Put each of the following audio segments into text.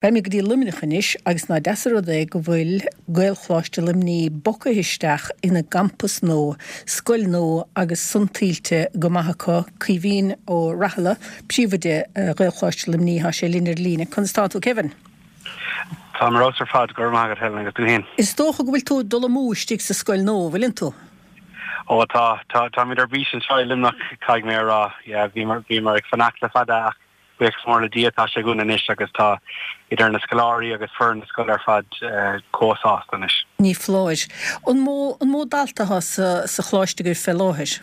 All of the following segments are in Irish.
Beidh mé go dtí Luimneach anois agus ná deas an rud é go bhfuil Gaelcholáiste Luimnigh bogtha isteach ina gcampas nua, scoil nua agus san tuillte go maith acu. Caoimhín Ó Rathaille, Príomhoide Ghaelcholáiste Luimnigh, tá sé linn ar líne. Conas tá tú Kevin? Táim ar fheabhas ar fad, go raibh maith agat Helen agus tú fhéin? Is dócha go bhfuil tú ag dul amú istigh sa scoil nua, bhfuileann tú? Ó tá, tá, táimid ar bís anseo i Luimneach, caithfidh mé a rá. Yeah, bhíomar, bhíomar ag fanacht le fada ach Buíochas mór le Dia tá sé againn anois agus tá idir na scoláirí agus foireann na scoile ar fad chomh sásta anois. Ní foláir. An mó, an mó dalta atá sa, sa choláiste agaibh fé láthair?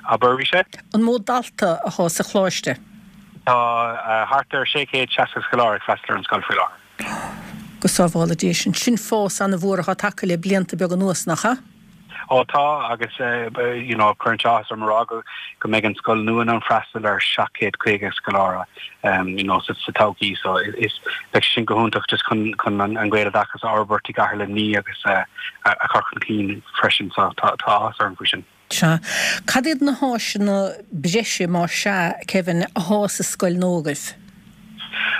Abair arís é? An mó dalta atá sa choláiste? Tá thart ar 660 scoláire ag freastal ar an scoil faoi láthair. Go sábhála Dia sinn. Sin fás ana-mhór atá tagtha le blianta beaga anuas, nach ea? Ó tá, agus you know cuireann sé áthas orm a rá go go mbeidh an scoil nua in ann freastal ar 750 scoláire you know sa sa todhchaí so is beidh sé sin go hiontach just chun chun an an Gaeloideachas a fhorbairt i gcathair Luimnigh agus a a chur chun cinn freisin so tá tá áthas orm faoi sin. Sea. Cad iad na háiseanna breise, más ea, Kevin, athá sa scoil nua agaibh?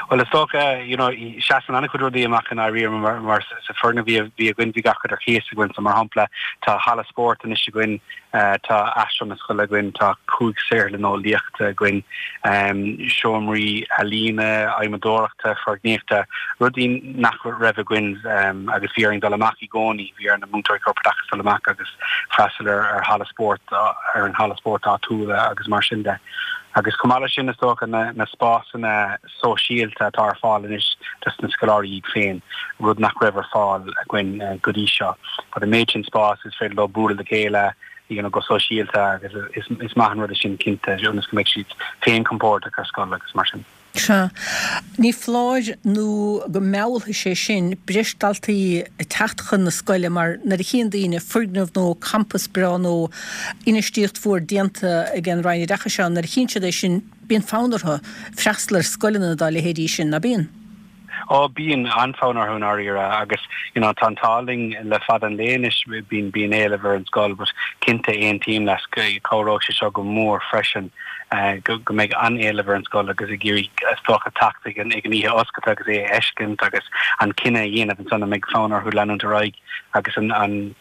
Bhuel, is dócha, you know, seasann an-chuid rudaí amach i ndáiríre mar, mar sa foirgneamh a bhí againn, bhí gach rud ar cíos againn. So, mar shampla, tá halla spóirt anois againn, tá aistreán na scoile againn, tá 5 saotharlann eolaíochta againn, seomraí ealaíne, adhmadóireachta, foirgníochta, rudaí nach raibh againn agus bhí orainn dul amach i gcónaí, bhí ar na múinteoirí corpoideachais dul amach agus freastal ar ar halla spóirt, ar an halla spóirt áitiúil agus mar sin de. Agus chomh maith leis sin, is dócha, na spásanna sóisialta atá ar fáil anois dos na scoláirí iad féin, rud nach raibh ar fáil againn go dtí seo. But an méid sin spás, is féidir leo bualadh le chéile, you know, go sóisialta agus is maith an rud é sin cinnte, ionas go mbeidh siad féin compordach ar scoil agus mar sin. Sea. Ní foláir nó go meallfaidh sé sin breis daltaí ag teacht chun na scoile mar nuair a chíonn daoine foirgneamh nua, campas breá nua, infheistíocht mhór déanta ag an Roinn Oideachais ann, nuair a chíonn siad é sin bíonn fonn orthu freastal ar scoileanna dá leithéidí sin, ná bíonn? Ó, bíonn an-fhonn orthu i ndáiríre agus you know tá an t-ádh linn le fada an lae anois, bíonn, bíonn éileamh ar an scoil but cinnte aontaím leat, cabhróidh sé seo go mór freisin go, go mbeidh an-éileamh ar an scoil agus ag iarraidh is dócha teacht ag an, ag an oíche oscailte agus é a fheiscint agus an cinneadh a dhéanamh ansan an mbeidh fonn orthu leanúint ar aghaidh agus an, an,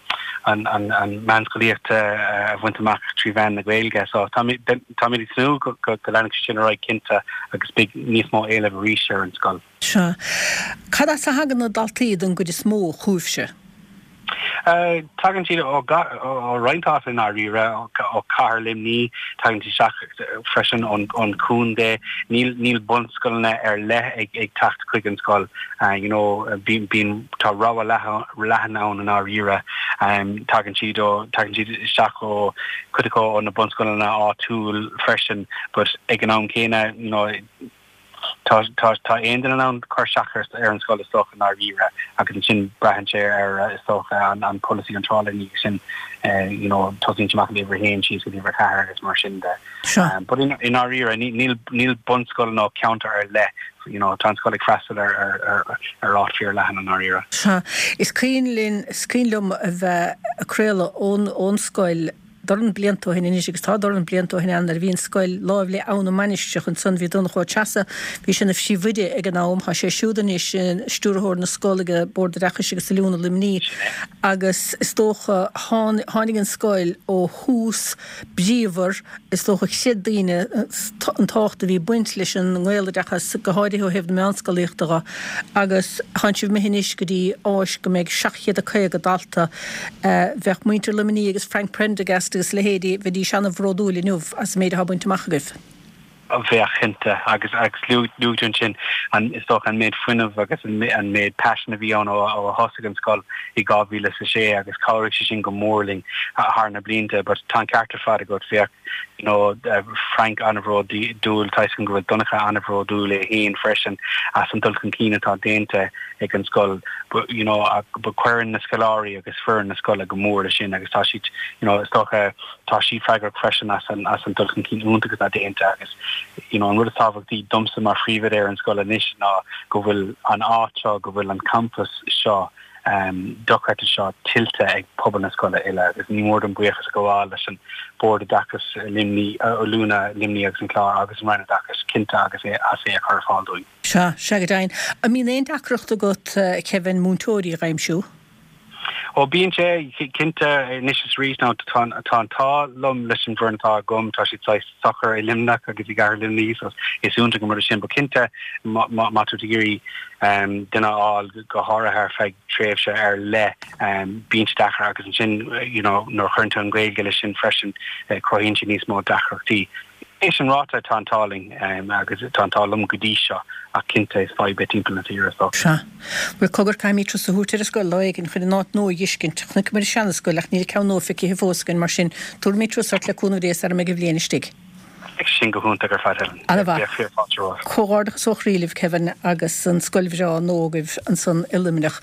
an, an, an meánscolaíocht a bhaint amach trí mheán na Gaeilge. So táimid, táimid ag tnúth go, go, go leanfaidh sé sin ar aghaidh cinnte agus beidh níos mó éilimh arís ar an scoil. Sea. Cad as a thagann na daltaí don gcuid is mó chugaibhse? Tagann siad ó, ó roinnt áiteanna i ndáiríre, ó chathair Luimnigh, tagann siad isteach freisin ón, ón chontae. Níl, níl bunscoileanna ar leith ag, ag teacht chuig an scoil. You know, bíonn, bíonn, tá rogha leathan, leathan ann i ndáiríre. Tagann siad ó, tagann siad isteach ó, cuid acu ó na bunscoileanna áitiúil freisin but ag an am céanna, you know, tá, tá, tá aon duine in ann cur isteach ar, ar an scoil is dócha i ndáiríre agus ansin braitheann sé ar is dócha an, an polasaí iontrála ina dhiaidh sin, you know, tosaíonn sé amach ag uimhir a haon síos go dtí uimhir a ceathair agus mar sin de. But i ndáiríre níl, níl bunscoil nó ceantar ar leith you know, tá an scoil ag freastal ar, ar, ar, ar áit fíor leathan i ndáiríre. Sea. Is cuimhin linn, is cuimhin liom a bheith ag craoladh ón, ón scoil dorn blianta ó shin anois agus tá dorn blianta ó shin ann nuair a bhí an scoil láimh le Abha na Mainistreach ansan bhí Donncha Ó Treasa, bhí sé ina phríomhoide ag an am, tá sé siúd anois ina stiúrthóir na scol ag Bord Oideachais agus Oiliúna Luimnigh agus is dócha tháinig an scoil ó thús bríomhar Is dócha chreid daoine an tábhacht a bhí ag baint leis an nGaeloideachas, go háirithe ó thaobh na meánscolaíochta dho, agus tánn sibh imithe anois go dtí áis go mbeidh 750 dalta. Bheadh muintir Luimnigh agus Frank Prendergast agus a leithéidí, bheidís ana-bhródúil inniu as an méid atá bainte amach agaibh. Bheadh, cinnte. Agus luaigh tú ansin, is dócha, an méid fuinnimh agus an méid paisin a bhí ann ó a thosaigh an scoil i 2006 agus chabhraigh sé sin go mór linn thar na blianta. But tá an ceart ar fad agat, bheadh you know Frank an-bhródúil, tá 'fhios agam go bhfuil Donncha an-bhródúil é féin freisin as an dul chun cinn atá déanta ag an scoil. But you know but cuireann na scoláirí agus foireann na scoile go mór leis sin agus tá siad you know is dócha tá siad freagrach freisin as an as an dul chun cinn iontach atá déanta agus you know an rud is tábhachtaí domsa mar phríomhoide ar an scoil anois ná go bhfuil an áit seo, go bhfuil an campas seo. Dochreidte seo tuillte ag pobal na scoile uile agus ní mór dom buíochas a ghabháil leis an Bord Oideachais Luimní, Oiliúna Luimní agus an Clár agus an Roinn Oideachais cinnte agus é as é a chur ar fáil dúinn. Sea, sea go deimhin. An mbíonn aon deacracht agat, Kevin, múinteoirí a dh'aimsiú? Ó bíonn sé, cinnte, anois is arís. Now tá an t-ádh liom leis an bhfoireann atá agam, tá siad saghas socair i Luimneach agus i gcathair Luimnigh so is iontach an rud é sin. But cinnte má tá tú ag iarraidh duine a fháil, go háirithe ar feadh tréimhse ar leith, bíonn sé deacair agus ansin you know nuair a chuireann tú an Ghaeilge leis sin freisin, cruthaíonn sé níos mó deacrachtaí. É sin ráite, tá an t-ádh linn agus tá an t-ádh liom go dtí seo ach cinnte is fadhb é timpeall na tíre so. Sea. Bhuel cogar caithfimid turas a thabhairt ar an scoil lá éigin chun an áit nua a dh'fheiscint. Chonaiceamar an seana-scoil ach níl an ceann nua feicithe fós againn mar sin tabharfaimid turas ort le cúnamh Dé sara mbeidh an bhliain istigh. Beidh sin go hiontach ar fad Helen. Ana-mhaith. Bheadh fíor fáilte romhat. Comhghairdeachas ó chroí libh Kevin agus an scoil bhreá nua agaibh ansan i Luimneach.